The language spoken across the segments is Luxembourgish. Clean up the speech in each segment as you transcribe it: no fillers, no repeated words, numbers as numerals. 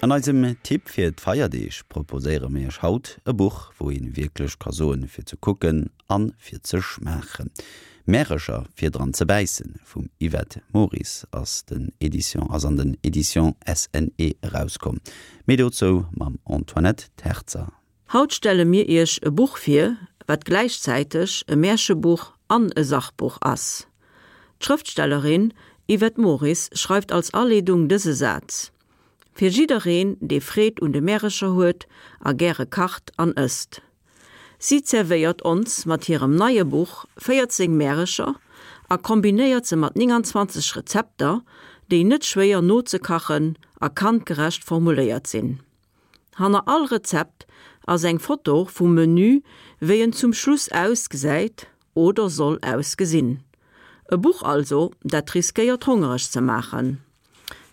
An eisem Tipp fir d'Feierdeeg proposéiere mir iech haut e Buch, wou een wierklech ka soen, fir ze kucken an fir ze schmaachen. Märecher fir dran ze bäissen vum Yvette Moris ass den Edition ass an den Editions SNE erauskomm. Méi dozou mam Antoinette Terzer. Haut stelle mir iech e Buch vir, wat gläichzäiteg e Märchebuch an e Sachbuch ass. D'Schrëftstellerin Yvette Moris schreift als Aleedung dëse Saz, Fir jiddereen, dee Freed un de Märecher huet a gäre kacht an ësst. Si zerwéiert ons mat hirem neie Buch 14 Märecher a kombinéiert se mat 29 Rezepter, déi net schwéier nozekachen a kandgerecht formuléiert sinn. Hanner all Rezept ass eng Foto vum Menü wéi en zum Schluss ausgesäit oder soll ausgesinn. E Buch also, dat riskéiert hongereg ze maachen.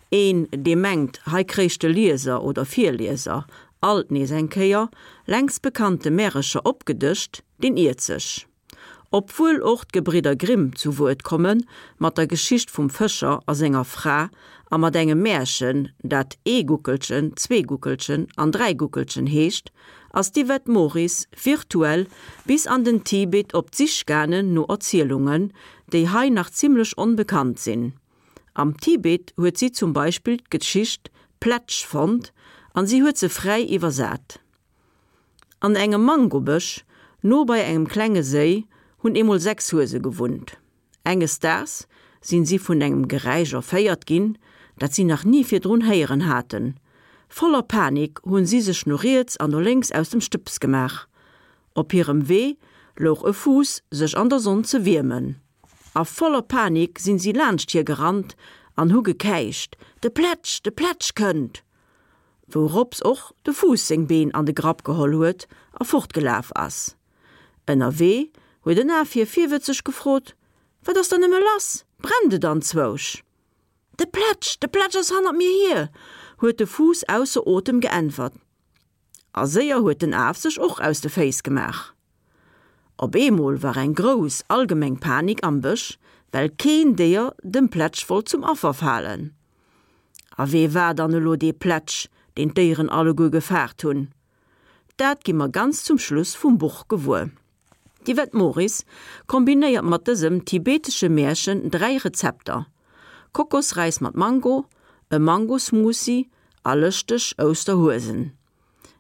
Een, dee mengt, hei kréich de Lieser oder Virlieser alt nees eng Kéier längst bekannte Märecher opgedëscht, deen iert sech. Obwuel och d'Gebridder Grimm zu Wuert komme mat der Geschicht vum Fëscher a senger Fra a mat engem Märchen, dat Ee Guckelchen, zwee Guckelchen an dräi Guckelchen heescht, ass d'Yvette Moris virtuell bis an den Tibet op d'Sich gaangen no Erzielungen, déi hei nach zimmlech onbekannt sinn. Am Tibet huet si zum Beispill d'Geschicht Plätsch fonnt an si huet se fräi iwwersat. An engem Mangobësch, no bei engem klenge Séi, hunn eemol 6 Huese gewunnt. Enges Daags sinn si vun engem Geräisch erféiert ginn, dat si nach ni virdrun héieren haten. Voller Panik hunn si sech no riets an no lénks aus dem Stëbs gemaach. Op hirem Wee louch e Fuuss sech an der Sonn ze wiermen. A voller Panik sinn si laanscht hie gerannt an hu gekäicht, De Plätsch, de Plätsch kënnt! Wourops och de Fuuss seng Been an de Grapp geholl huet a fortgelaf ass. Ënnerwee huet en Af hie virwëtzeg gefrot, Wat ass dann nëmme lass, brennt et anzwousch? De Plätsch, de Plätsch ass hannert mir hier! huet de Fuuss ausser Otem geäntwert. A séier huet den Af sech och aus de Féiss gemaach. Op eemol war eng grouss allgemeng Panik am Bësch, well keen Déier dem Plätsch wollt zum Affer falen. A wee war dann elo dee Plätsch, deen d'Déieren alleguer gefaart hunn? Dat gi mer ganz zum Schluss vum Buch gewuer. D'Yvette Moris kombinéiert mat dësem tibetesche Märchen 3 Rezepter, Kokosräis mat Mango, e Mangosmoothie a lëschteg Ousterhuesen.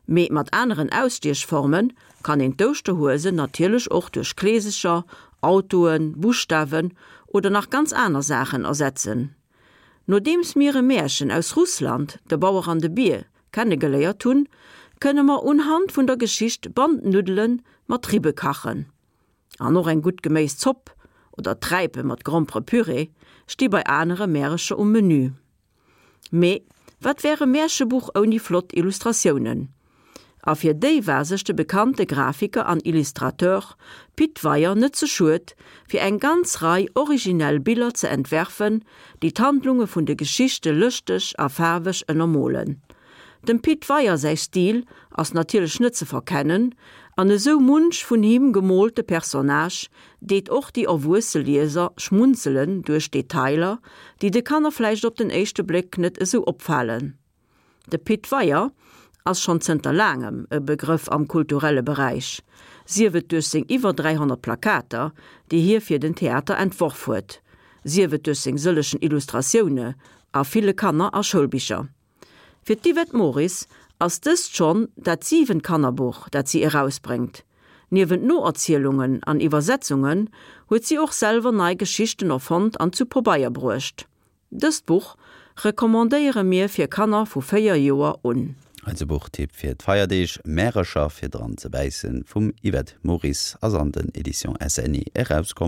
Mee mat aneren Ausstiechforme kann een d'Ouschterhuesen natierlech och duerch Kleesecher, Autoen, Buschtawen oder nach ganz aner Saachen ersetzen. Nodeems mir e Märchen aus Russland, De Bauer an de Bier, kennegeléiert hunn, kënne mer unhand vun der Geschicht Bandnuddele mat Ribbe kachen. An och eng gutt Geméiszopp oder Träipe mat Gromperepüree sti bei anere Märecher um Menü. Mee wat wär e Märchebuch ouni flott Illustratiounen? A fir déi war sech de bekannte Grafiker an Illustrateur Pit Weyer net ze schued, fir eng ganz Rei originell Biller ze entwerfen, déi d'Handlunge vun de Geschichte lëschteg a faarweg ënnermolen. Dem Pit Weyer säi Stil ass natierlech net ze verkennen, an esou munch vun him gemoolte Personnage deet och déi erwuesse Lieser schmunzelen duerch Detailer, déi de Kanner vläicht op den éischte Bléck net esou opfalen. De Pit Weyer ass schonn zënter laangem e Begrëff am kulturelle Beräich, sief et duerch seng iwwer 300 Plakater, déi hie fir den Theater entworf huet, sief et duerch seng sëllechen Illustratioune a ville Kanner a Schoulbicher. Fir d'Yvette Moris ass dëst schonn dat siwent Kannerbuch, dat si erausbréngt. Niewent Noerzielungen an Iwwersetzungen huet si och selwer nei Geschichten erfonnt an zu Pobeier bruecht. Dëst Buch recommandéiere mir fir Kanner vu 4 Joer un. Eise Buchtipp fir d'Feierdeeg, Märecher fir dran ze bäissen vum Yvette Moris ass an den Editions SNE erauskomm.